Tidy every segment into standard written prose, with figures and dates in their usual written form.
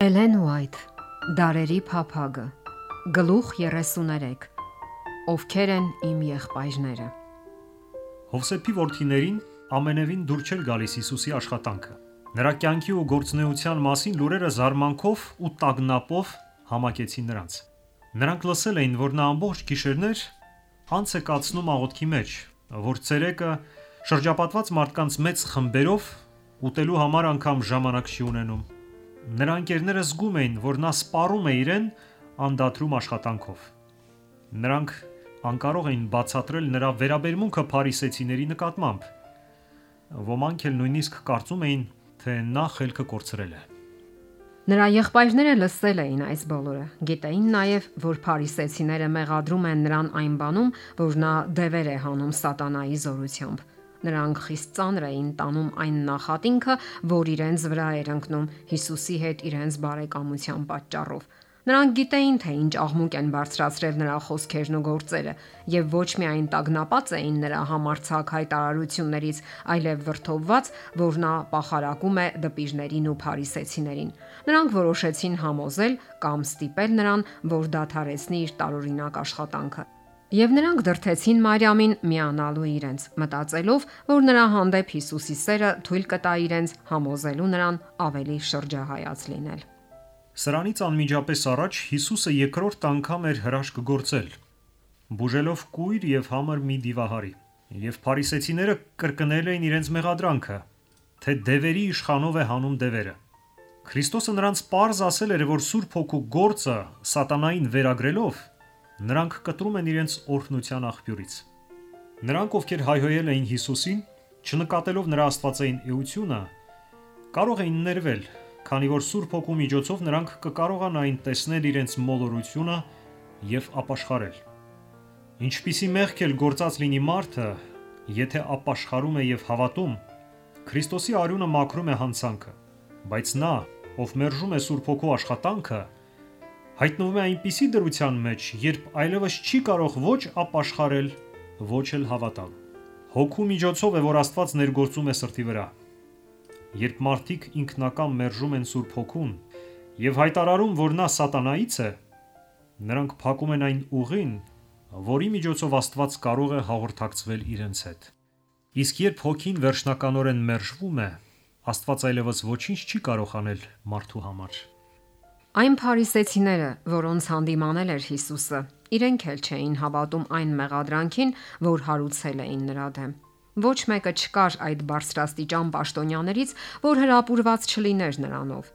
Էլեն Ուայթ, Դարերի փափագը, գլուխ 33, ովքեր են իմ եղբայրները։ Հովսեփի որդիներին ամենևին դուր չէր գալիս Հիսուսի աշխատանքը։ Նրա կյանքի ու գործունեության մասին լուրերը զարմանքով ու տագնապով համակեցին նրանց։ Նրանք լսել էին, որ նա ամբողջ գիշերներ անց է կացնում աղոթքի մեջ, որ ցերեկը շրջապատված մարդկանց մեծ խմբերով ուտելու համար անգամ ժամանակ չի ունենում։ Նրա ընկերները զգում էին, որ նա սպառում է իրեն անդադրում աշխատանքով։ Նրանք անկարող էին բացատրել նրա վերաբերմունքը փարիսեցիների նկատմամբ։ Ոմանք էլ նույնիսկ կարծում էին, թե նա խելքը կորցրել է։ Նրա եղբայրները լսել էին այս բոլորը, գիտեին նաև, որ փարիսեցիները մեղադրում են նրան այն բանում, որ նա դևեր է հանում սատանայի զորությամբ։ Նրանք խիստ ծանր էին տանում այն նախատինքը, որ իրենց վրա էր ընկնում Հիսուսի հետ իրենց բարեկամության պատճառով։ Նրանք գիտեին, թե ինչ աղմուկ են բարձրացրել նրա խոսքերն ու գործերը, եւ ոչ միայն տագնապած էին նրա համարձակ հայտարարություններից, այլև վրդովված, որ նա պախարակում է դպիրներին ու փարիսեցիներին։ Նրանք որոշեցին համոզել կամ ստիպել նրան, որ դադարեցնի իր տարօրինակ աշխատանքը։ Եվ նրանք դրդեցին Մարիամին միանալու իրենց, մտածելով, որ նրա հանդեպ Հիսուսի սերը թույլ կտա իրենց համոզելու նրան ավելի շրջահայաց լինել։ Սրանից անմիջապես առաջ Հիսուսը երկրորդ անգամ էր հրաշք գործել, բուժելով կույր եւ համր մի դիվահարի, եւ փարիսեցիները կրկնել էին իրենց մեղադրանքը, թե դևերի իշխանով է հանում դևերը։ Քրիստոսը նրանց պարզ ասել էր, որ Սուրբ Հոգու գործը սատանային վերագրելով նրանք կտրում են իրենց օրհնության աղբյուրից։ Նրանք, ովքեր հայհոյել էին Հիսուսին, չնկատելով նրա աստվածային էությունը, կարող էին ներվել, քանի որ Սուրբ Հոգու միջոցով նրանք կկարողանային տեսնել իրենց մոլորությունը եւ ապաշխարել։ Ինչպիսի մեղք էլ գործած լինի մարդը, եթե ապաշխարում է եւ հավատում, Քրիստոսի արյունը մաքրում է հանցանքը, բայց նա, ով մերժում է Սուրբ Հոգու աշխատանքը, հայտնվում է այնպիսի դրության մեջ, երբ այլևս չի կարող ոչ ապաշխարել, ոչ էլ հավատալ։ Հոգու միջոցով է, որ Աստված ներգործում է սրտի վրա։ Երբ մարդիկ ինքնակամ մերժում են Սուրբ Հոգուն եւ հայտարարում, որ նա սատանայից է, նրանք փակում են այն ուղին, որի միջոցով Աստված կարող է հաղորդակցվել իրենց հետ։ Իսկ երբ Հոգին վերջնականորեն մերժվում է, Աստված այլևս ոչինչ չի կարող անել մարդու համար։ Այն փարիսեցիները, որոնց հանդիմանել էր Հիսուսը, իրենք էլ չէին հավատում այն մեղադրանքին, որ հարուցել էին նրա դեմ։ Ոչ մեկը չկար այդ բարձրաստիճան պաշտոնյաներից, որ հրապուրված չլիներ նրանով։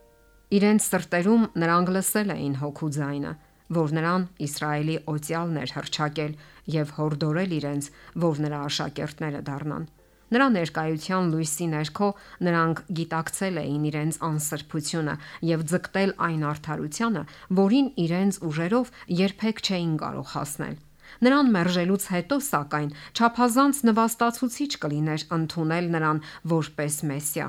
Իրենց սրտերում նրանք լսել էին Հոգու ձայնը, որ նրան Իսրայելի օծյալն էր հռչակել եւ հորդորել իրենց, որ նրա աշակերտները դառնան։ Նրա ներկայության լույսի ներքո նրանք գիտակցել էին իրենց անսրբությունը եւ ձգտել այն արդարությանը, որին իրենց ուժերով երբեք չէին կարող հասնել։ Նրան մերժելուց հետո, սակայն, չափազանց նվաստացուցիչ կլիներ ընդունել նրան որպես Մեսիա։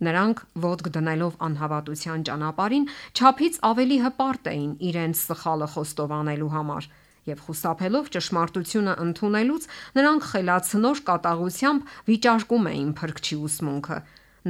Նրանք ոտք դնելով անհավատության ճանապարհին, չափից ավելի հպարտ էին իրենց սխալը խոստովանելու համար։ Եվ խուսափելով ճշմարտությունը ընդունելուց, նրանք խելացնոր կատաղությամբ վիճարկում էին Փրկչի ուսմունքը։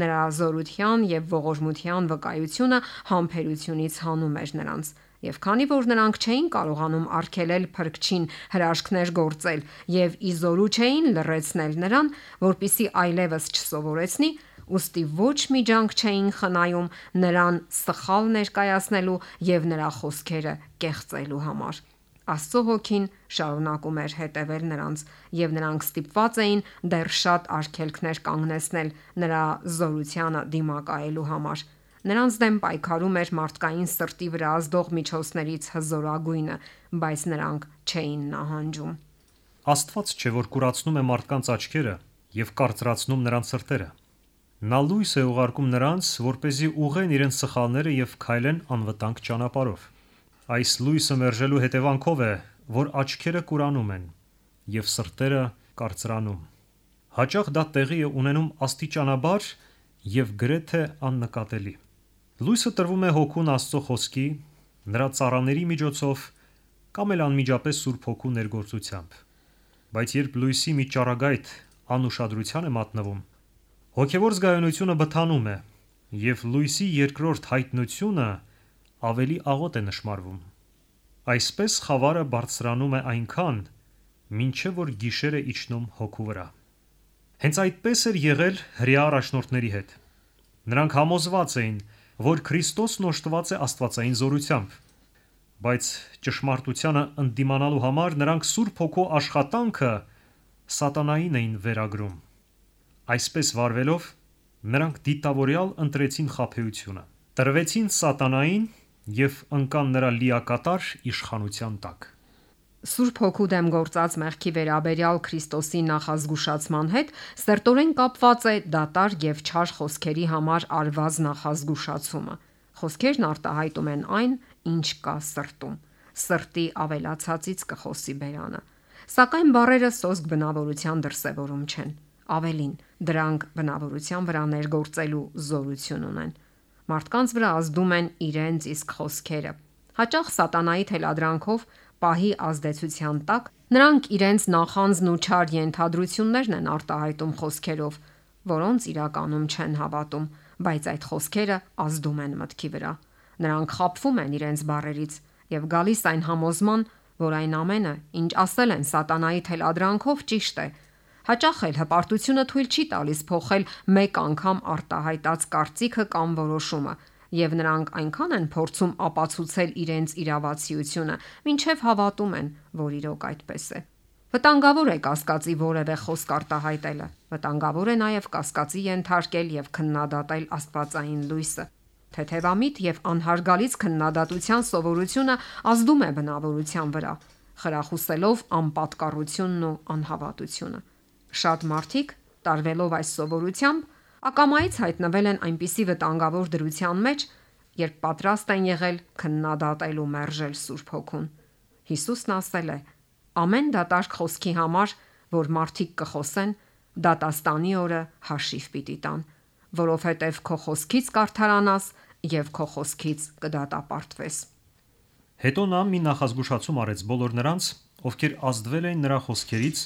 Նրա զորության եւ ողորմության վկայությունը համբերությունից հանում էր նրանց։ Եվ քանի որ նրանք չէին կարողանում արգելել Փրկչին հրաշքներ գործել եւ իզորու չէին լռեցնել նրան, որpիսի այլևս չսովորեցնի, ուստի ոչ մի ջանք չէին խնայում նրան սխալ ներկայացնելու եւ նրա խոսքերը կեղծելու համար։ Աստծո Հոգին շարունակում էր հետևել նրանց, եւ նրանք ստիպված էին դեռ շատ արգելքներ կանգնեցնել նրա զորությանը դիմակայելու համար։ Նրանց դեմ պայքարում էր մարդկային սրտի վրա ազդող միջոցներից հզորագույնը, բայց նրանք չէին նահանջում։ Աստված չէ, որ կուրացնում է մարդկանց աչքերը եւ կարծրացնում նրանց սրտերը։ Նա լույս է ուղարկում նրանց, որպեսզի ուղղեն իրենց սխալները եւ քայլեն անվտանգ ճանապարհով։ Այս լույսը մերժելու հետևանքով է, որ աչքերը կուրանում են եւ սրտերը կարծրանում։ Հաճախ դա տեղի է ունենում աստիճանաբար եւ գրեթե աննկատելի։ Լույսը տրվում է Հոգուն Աստծո խոսքի, նրա ծառաների միջոցով կամ էլ անմիջապես Սուրբ Հոգու ներգործությամբ։ Բայց երբ լույսի մի ճառագայթ անուշադրության է մատնվում, հոգեվոր զգայունությունը բթանում է եւ լույսի երկրորդ հայտնությունը ավելի աղոտ է նշмарվում։ Այսպես խավարը բարձրանում է այնքան, մինչև որ գիշերը իջնում հոգու վրա։ Հենց այդպես էր եղել հրեա առաջնորդների հետ։ Նրանք համոզված էին, որ Քրիստոսն օժտված է աստվածային զորությամբ, բայց ճշմարտությանը ընդդիմանալու համար նրանք Սուրբ Հոգու աշխատանքը սատանային էին վերագրում։ Այսպես վարվելով, նրանք դիտավորյալ ընտրեցին խաբեությունը, տրվեցին սատանային և ընկան նրա լիակատար իշխանության տակ։ Սուրբ Հոգու դեմ գործած մեղքի վերաբերյալ Քրիստոսի նախազգուշացման հետ սերտորեն կապված է դատարկ եւ չար խոսքերի համար արված նախազգուշացումը։ Խոսքերն արտահայտում են այն, ինչ կա սրտում։ Սրտի ավելացածից կխոսի բերանը։ Սակայն բառերը սոսկ բնավորության դրսևորում չեն։ Ավելին, դրանք բնավորության վրա ներգործելու զորություն ունեն։ Մարդկանց վրա ազդում են իրենց իսկ խոսքերը։ Հաճախ սատանայի թելադրանքով պահի ազդեցության տակ նրանք իրենց նախանձն ու չար ենթադրություններն են արտահայտում խոսքերով, որոնց իրականում չեն հավատում, բայց այդ խոսքերը ազդում են մտքի վրա։ Նրանք խաբվում են իրենց բառերից եւ գալիս այն համոզման, որ այն ամենը, ինչ ասել են սատանայի թելադրանքով, ճիշտ է։ Հաճախ էլ հպարտությունը թույլ չի տալիս փոխել մեկ անգամ արտահայտած կարծիքը կամ որոշումը, եւ նրանք այնքան են փորձում ապացուցել իրենց իրավացիությունը, մինչև հավատում են, որ իրոք այդպես է։ Վտանգավոր է կասկածի որևէ խոսք արտահայտելը։ Վտանգավոր է նաև կասկածի ենթարկել եւ քննադատել աստվածային լույսը։ Թեթևամիտ եւ անհարգալից քննադատության սովորությունը ազդում է բնավորության վրա, խրախուսելով անպատկառությունն ու անհավատությունը։ Շատ մարդիկ, տարվելով այս սովորությամբ, ակամայից հայտնվել են այնպիսի վտանգավոր դրության մեջ, երբ պատրաստ են եղել քննադատել ու մերժել Սուրբ Հոգուն։ Հիսուսն ասել է. «Ամեն դատարկ խոսքի համար, որ մարդիկ կխոսեն, դատաստանի օրը հաշիվ պիտի տան, որովհետև քո խոսքից կարդարանաս եւ քո խոսքից կդատապարտվես»։ Հետո նա մի նախազգուշացում արեց բոլոր նրանց, ովքեր ազդվել էին նրա խոսքերից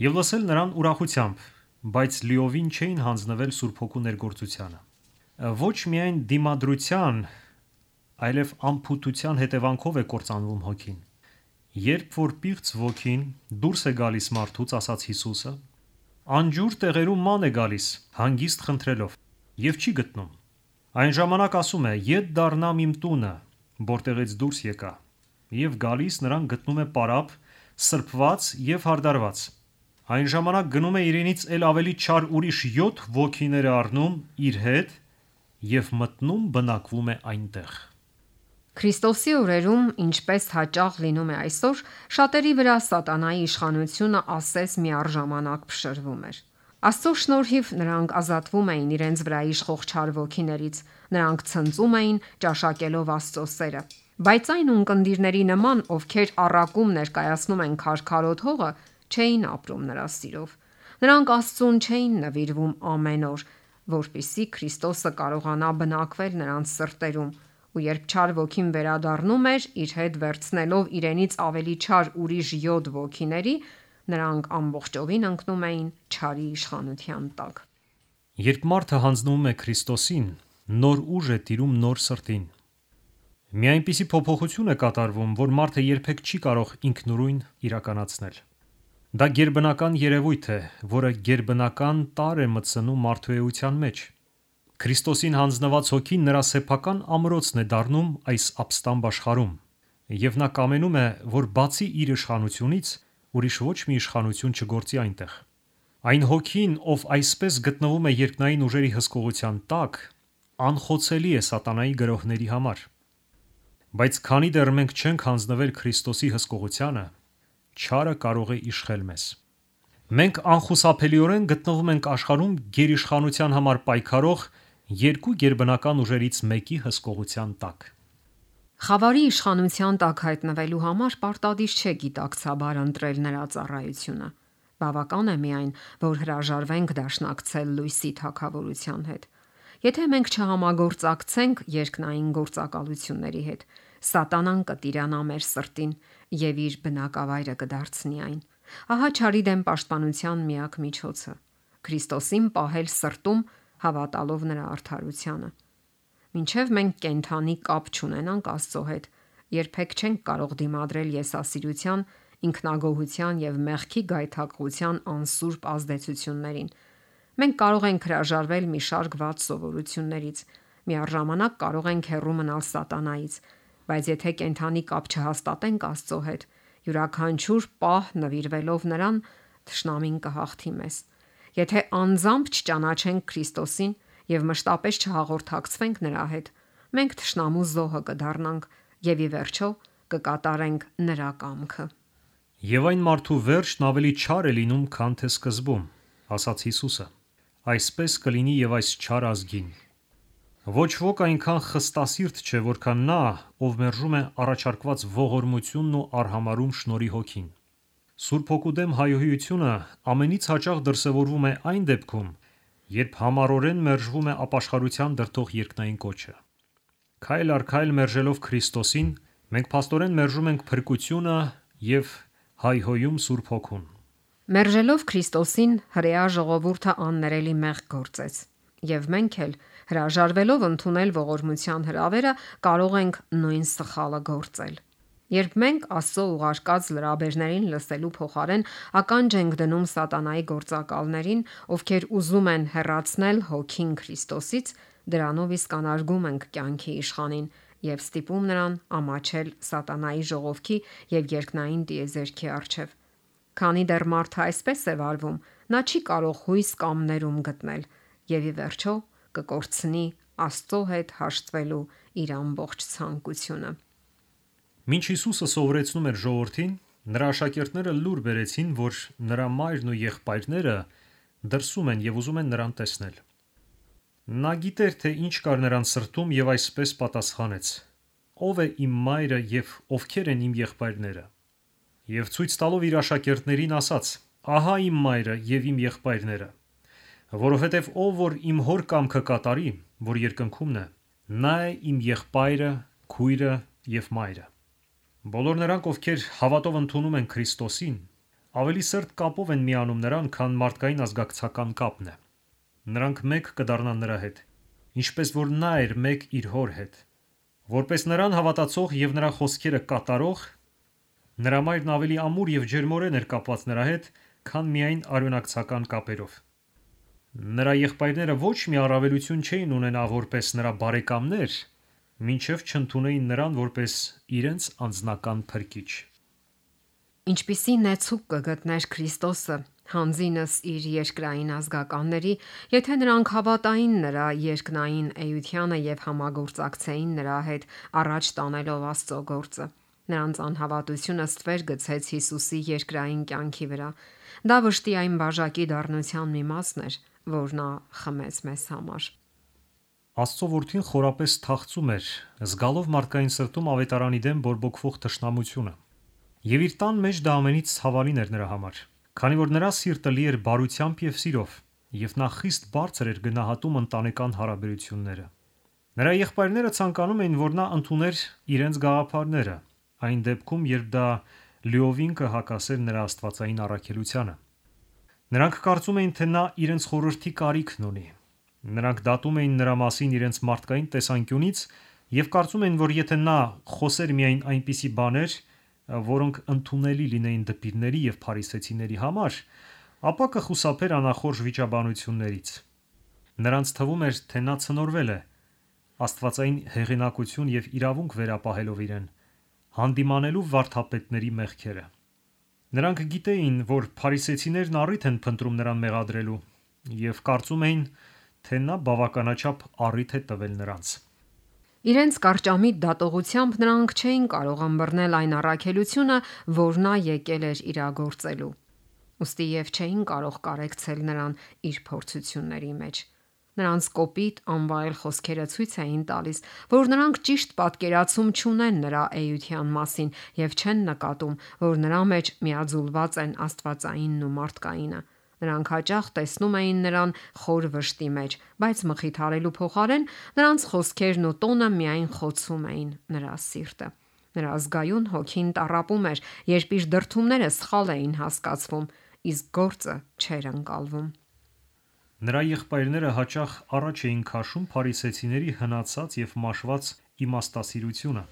եւ լսել նրան ուրախությամբ, բայց լիովին չէին հանձնվել Սուրբ Հոգու ներգործությանը։ Ոչ միայն դիմադրության, այլև անփութության հետևանքով է կործանվում հոգին։ Երբ որ պիղծ ոգին դուրս է գալիս մարդուց, ասաց Հիսուսը, անջուր տեղերում ման է գալիս, հանգիստ խնդրելով, եւ չի գտնում։ Այն ժամանակ ասում է. «Ետ դառնամ իմ տունը, որտեղից դուրս եկա», եւ գալիս նրան գտնում է պարապ, սրբված եւ հարդարված։ Այն ժամանակ գնում է իրենից էլ ավելի չար ուրիշ 7 ոգիներ առնում իր հետ եւ մտնում բնակվում է այնտեղ։ Քրիստոսի օրերում, ինչպես հաճախ լինում է այսօր, շատերի վրա սատանայի իշխանությունը ասես միառժամանակ փշրվում էր։ Աստծո շնորհիվ նրանք ազատվում էին իրենց վրա իշխող չար ոգիներից, նրանք ցնծում էին ճաշակելով Աստծո սերը։ Բայց այն ունկնդիրների նման, ովքեր առակում ներկայացնում են քարքարոտ հողը, չէին ապրում նրա սիրով։ Նրանք Աստծուն չէին նվիրվում ամեն օր, որպեսզի Քրիստոսը կարողանա բնակվել նրանց սրտերում, ու երբ չար ոգին վերադառնում էր, իր հետ վերցնելով իրենից ավելի չար ուրիշ 7 ոգիների, նրանք ամբողջովին ընկնում էին չարի իշխանության տակ։ Երբ մարդը հանձնվում է Քրիստոսին, նոր ուժ է տիրում նոր սրտին։ Մի այնպիսի փոփոխություն է կատարվում, որ մարդը երբեք չի կարող ինքնուրույն իրականացնել։ Դա գերբնական երևույթ է, որը գերբնական տարր է մտցնում մարդու էության մեջ։ Քրիստոսին հանձնված հոգին նրա սեփական ամրոցն է դառնում այս ապստամբ աշխարհում, եւ նա կամենում է, որ բացի իր իշխանությունից ուրիշ ոչ մի իշխանություն չգործի այնտեղ։ Այն հոգին, ով այսպես գտնվում է երկնային ուժերի հսկողության տակ, անխոցելի է սատանայի գրոհների համար։ Բայց քանի դեռ մենք չենք հանձնվել Քրիստոսի հսկողությանը, չարը կարող է իշխել մեզ։ Մենք անխուսափելիորեն գտնվում ենք աշխարհում գերիշխանության համար պայքարող երկու գերբնական ուժերից մեկի հսկողության տակ։ Խավարի իշխանության տակ հայտնվելու համար պարտադիր չէ գիտակցաբար ընտրել նրա ծառայությունը։ Բավական է միայն, որ հրաժարվենք դաշնակցել լույսի թագավորության հետ։ Եթե մենք չհամագործակցենք երկնային գործակալությունների հետ, սատանան կտիրանա մեր սրտին եւ իր բնակավայրը կդարձնի այն։ Ահա չարի դեմ պաշտպանության միակ միջոցը՝ Քրիստոսին պահել սրտում, հավատալով նրա արդարությանը։ Մինչև մենք կենթանի կապ չունենանք Աստծո հետ, երբեք չենք կարող դիմադրել եսասիրության, ինքնագոհության եւ մեղքի գայթակղության անսուրբ ազդեցություններին։ Մենք կարող ենք հրաժարվել մի շարք վատ սովորություններից, միառժամանակ կարող ենք հեռու մնալ սատանայից, բայց եթե կենթանի կապ չհաստատենք Աստծո հետ, յուրաքանչյուր պահ նվիրվելով նրան, թշնամին կհաղթի մեզ։ Եթե անձամբ չճանաչենք Քրիստոսին եւ մշտապես չհաղորդակցվենք նրա հետ, մենք թշնամու զոհը կդառնանք եւ ի վերջո կկատարենք նրա կամքը։ Եվ այն մարդու վերջն ավելի չար է լինում, քան թե սկզբում, ասաց Հիսուսը։ Այսպես կլինի եւ այս չար ազգին։ Ոչ ոք այնքան խստասիրտ չէ, որքան նա, ով մերժում է առաջարկված ողորմությունն ու արհամարհում շնորհի հոգին։ Սուրբ Հոգու դեմ հայհոյությունը ամենից հաճախ դրսևորվում է այն դեպքում, երբ համառորեն մերժվում է ապաշխարության դրդող երկնային կոչը։ Քայլ առ քայլ մերժելով Քրիստոսին, մենք փաստորեն մերժում ենք փրկությունը եւ հայհոյում Սուրբ Հոգուն։ Մերժելով Քրիստոսին, հրեա ժողովուրդը աններելի մեղք գործեց, եւ մենք էլ հրաժարվելով ընդունել ողորմության հրավերը, կարող ենք նույն սխալը գործել։ Երբ մենք Աստծո ուղարկած լրաբերներին լսելու փոխարեն ականջ ենք դնում սատանայի գործակալներին, ովքեր ուզում են հեռացնել հոգին Քրիստոսից, դրանով իսկ անարգում ենք կյանքի իշխանին եւ ստիպում նրան ամաչել սատանայի ժողովքի եւ երկնային տիեզերքի առջև։ Քանի դեռ մարդը այսպես է վարվում, նա չի կարող հույս կամ ներում գտնել եւ ի վերջո կկորցնի Աստծո հետ հաշտվելու իր ամբողջ ցանկությունը։ Մինչ Հիսուսը սովորեցնում էր ժողովրդին, նրա աշակերտները լուր բերեցին, որ նրա մայրն ու եղբայրները դրսում են եւ ուզում են նրան տեսնել։ Նա գիտեր, թե ինչ կար նրան սրտում եւ այսպես պատասխանեց. Ո՞վ է իմ մայրը եւ ովքեր են իմ եղբայրները։ Եվ ցույց տալով իր աշակերտներին ասաց. Ահա իմ մայրը եւ իմ եղբայրները, որովհետեւ ով որ իմ հոր կամքը կատարի, որ երկնքումն է, նա է իմ եղբայրը, քույրը եւ մայրը։ Բոլոր նրանք, ովքեր հավատով ընդունում են Քրիստոսին, ավելի սերտ կապով են միանում նրան, քան մարդկային ազգակցական կապն է։ Նրանք մեկ կդառնան նրա հետ, ինչպես որ նա էր մեկ իր հոր հետ։ Որպես նրան հավատացող եւ նրա խոսքերը կատարող, նրա մայրն ավելի ամուր եւ ջերմորեն էր կապված նրա հետ, քան միայն արյունակցական կապերով։ Նրա եղբայրները ոչ մի առավելություն չէին ունենա որպես նրա բարեկամներ, մինչև չընդունեին նրան որպես իրենց անձնական փրկիչ։ Ինչպիսի նեցուկ կգտներ Քրիստոսը հանձինս իր երկրային ազգականների, եթե նրանք հավատային նրա երկնային էությանը եւ համագործակցեին նրա հետ առաջ տանելով Աստծո գործը։ Նրանց անհավատությունը ստվեր գցեց Հիսուսի երկրային կյանքի վրա։ Դա վշտի այն բաժակի դառնության մի մասն էր, որ նա խմեց մեզ համար։ Աստծո որդին խորապես թախծում էր, զգալով մարդկային սրտում ավետարանի դեմ բորբոքվող թշնամությունը։ Եվ իր տան մեջ դա ամենից ցավալին էր նրա համար, քանի որ նրա սիրտը լի էր բարությամբ եւ սիրով, եւ նա խիստ բարձր էր գնահատում ընտանեկան հարաբերությունները։ Նրա եղբայրները ցանկանում էին, որ նա ընդուներ իրենց գաղափարները, այն դեպքում, երբ դա լիովին կհակասեր նրա աստվածային առաքելությանը։ Նրանք կարծում էին, թե նա իրենց խորհրդի կարիքն ունի։ Նրանք դատում էին նրա մասին իրենց մարդկային տեսանկյունից եւ կարծում էին, որ եթե նա խոսեր միայն այնպիսի բաներ, որոնք ընդունելի լինեին դպիրների եւ փարիսեցիների համար, ապա կխուսափեր անախորժ վիճաբանություններից։ Նրանց թվում էր, թե նա ցնորվել է աստվածային հեղինակություն եւ իրավունք վերապահելով իրեն, հանդիմանելու վարդապետների մեղքերը։ Նրանք գիտեին, որ փարիսեցիներն առիթ են փնտրում նրան մեղադրելու եւ կարծում էին, թե նա բավականաչափ առիթ է տվել նրանց։ Իրենց կարճամիտ դատողությամբ նրանք չէին կարող ըմբռնել այն առաքելությունը, որ նա եկել էր իրագործելու։ Ոստի եւ չէին կարող կարեկցել նրան իր փորձությունների մեջ։ Նրանց կոպիտ անվայել խոսքերը ցույց էին տալիս, որ նրանք ճիշտ պատկերացում չունեն նրա էության մասին եւ չեն նկատում, որ նրա մեջ միաձուլված են աստվածայինն ու մարդկայինը։ Նրանք հաճախ տեսնում էին նրան խոր վշտի մեջ, բայց մխիթարելու փոխարեն նրանց խոսքերն ու տոնը միայն խոցում էին նրա սիրտը։ Նրա զգայուն հոգին տառապում էր, երբ իր դրդումները սխալ էին հասկացվում, իսկ գործը չէր ընկալվում։ Նրա եղբայրները հաճախ առաջ էին քաշում փարիսեցիների հնացած եւ մաշված իմաստասիրությունը,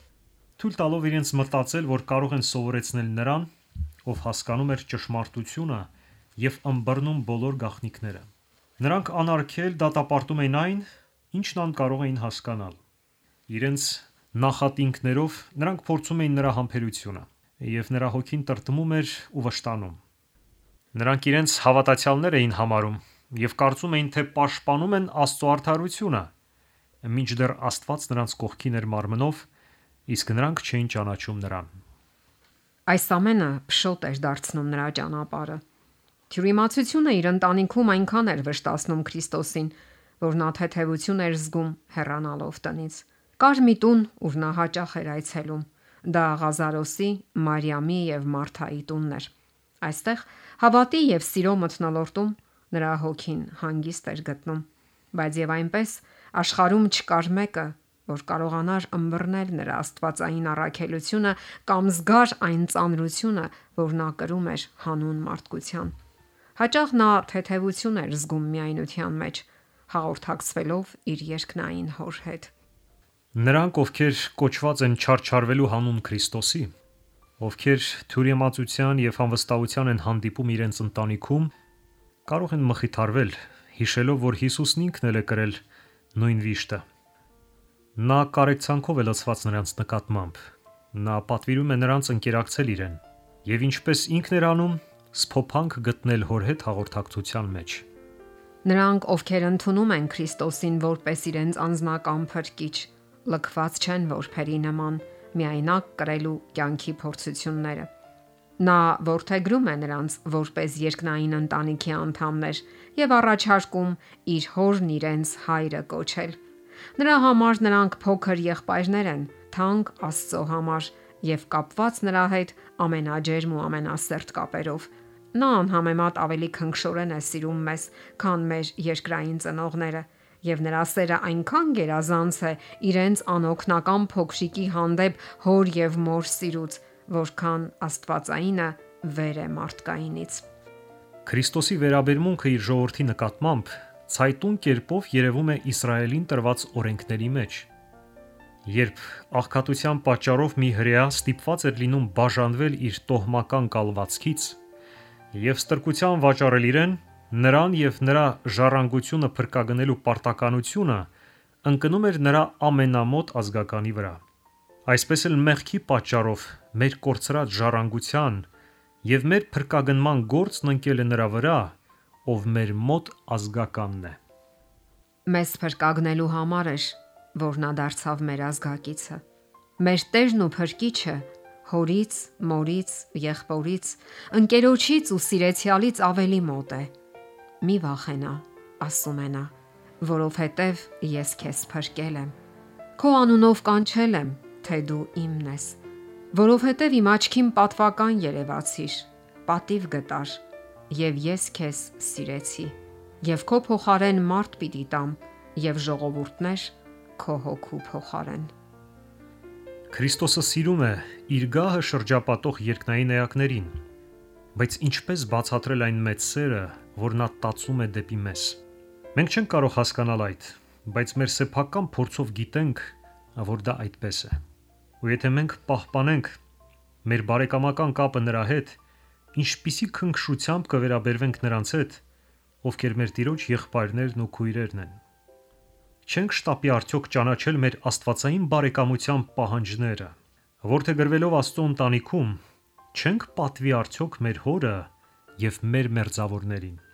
թույլ տալով իրենց մտածել, որ կարող են սովորեցնել նրան, ով հասկանում էր ճշմարտությունը եւ ըմբռնում բոլոր գաղտնիքները։ Նրանք անարգել դատապարտում էին այն, ինչն անկարող էին հասկանալ։ Իրենց նախատինքներով նրանք փորձում էին նրա համբերությունը, եւ նրա հոգին տրտմում էր ու վշտանում։ Նրանք իրենց հավատացյալներ էին համարում եւ կարծում էին, թե պաշտպանում են Աստծո արդարությունը, մինչդեռ Աստված նրանց կողքին էր մարմնով, իսկ նրանք չէին ճանաչում նրան։ Այս ամենը փշոտ էր դարձնում նրա ճանապարհը։ Թյուրիմացությունը իր ընտանիքում այնքան էր վշտացնում Քրիստոսին, որ նա թեթևություն էր զգում հեռանալով տնից։ Կար մի տուն, ուր նա հաճախ էր այցելում։ Դա Ղազարոսի, Մարիամի եւ Մարթայի տունն էր։ Այստեղ հավատի եւ սիրո մթնոլորտում նրա հոգին հանգիստ էր գտնում, բայց եւ այնպես աշխարհում չկար մեկը, որ կարողանար ըմբռնել նրա աստվածային առաքելությունը կամ զգար այն ծանրությունը, որ նա կրում էր հանուն մարդկության։ Հաճախ նա թեթևություն էր զգում միայնության մեջ, հաղորդակցվելով իր երկնային հոր հետ։ Նրանք, ովքեր կոչված են չարչարվելու հանուն Քրիստոսի, ովքեր թյուրիմացության եւ անվստահության են հանդիպում իրենց ընտանիքում, կարող են մխիթարվել, հիշելով, որ Հիսուսն ինքն էլ է կրել նույն վիշտը։ Նա կարեկցանքով է լցված նրանց նկատմամբ։ Նա պատվիրում է նրանց ընկերակցել իրեն եւ ինչպես ինքն էր անում, սփոփանք գտնել հոր հետ հաղորդակցության մեջ։ Նրանք, ովքեր ընդունում են Քրիստոսին որպես իրենց անձնական փրկիչ, լքված չեն որբերի նման միայնակ կրելու կյանքի փորձությունները։ Նա որդեգրում է նրանց որպես երկնային ընտանիքի անդամներ եւ առաջարկում իր հորն իրենց հայրը կոչել։ Նրա համար նրանք փոքր եղբայրներ են, թանկ Աստծո համար եւ կապված նրա հետ ամենաջերմ ու ամենասերտ կապերով։ Նա անհամեմատ ավելի քնքշորեն է սիրում մեզ, քան մեր երկրային ծնողները, եւ նրա սերը այնքան գերազանց է իրենց անօգնական փոքրիկի հանդեպ հոր եւ մոր սիրուց, որքան աստվածայինը վեր է մարդկայինից։ Քրիստոսի վերաբերմունքը իր ժողովրդի նկատմամբ ցայտուն կերպով երևում է Իսրայելին տրված օրենքների մեջ։ Երբ աղքատության պատճառով մի հրեա ստիպված էր լինում բաժանվել իր տոհմական կալվածքից եւ ստրկության վաճառել իրեն, նրան եւ նրա ժառանգությունը փրկագնելու պարտականությունը ընկնում էր նրա ամենամոտ ազգականի վրա։ Այսպես էլ մեղքի պատճառով մեր կորցրած ժառանգության եւ մեր փրկագնման գործն ընկել է նրա վրա, ով մեր մոտ ազգականն է։ Մեզ փրկագնելու համար էր, որ նա դարձավ մեր ազգակիցը։ Մեր Տերն ու Փրկիչը հորից, մորից, եղբորից, ընկերոջից ու սիրեցյալից ավելի մոտ է։ Մի վախենա, ասում է նա, որովհետև ես քեզ փրկել եմ։ Քո անունով կանչել եմ, թե դու իմն ես, որովհետև իմ աչքին պատվական երևացիր, պատիվ գտար, եւ ես քեզ սիրեցի, եւ քո փոխարեն մարդ պիտի տամ, եւ ժողովուրդներ քո հոգու փոխարեն։ Քրիստոսը սիրում է իր գահը շրջապատող երկնային էակներին, բայց ինչպես բացատրել այն մեծ սերը, որ նա տածում է դեպի մեզ։ Մենք չենք կարող հասկանալ այդ, բայց մեր սեփական փորձով գիտենք, որ դա այդպես է։ Ու եթե մենք պահպանենք մեր բարեկամական կապը նրա հետ, ինչպիսի քնքշությամբ կվերաբերվենք նրանց հետ, ովքեր մեր Տիրոջ եղբայրներն ու քույրերն են։ Չենք շտապի արդյոք ճանաչել մեր աստվածային բարեկամության պահանջները, որդեգրվելով Աստծո ընտանիքում, չենք պատվի արդյոք մեր հորը եւ մեր մերձավորներին։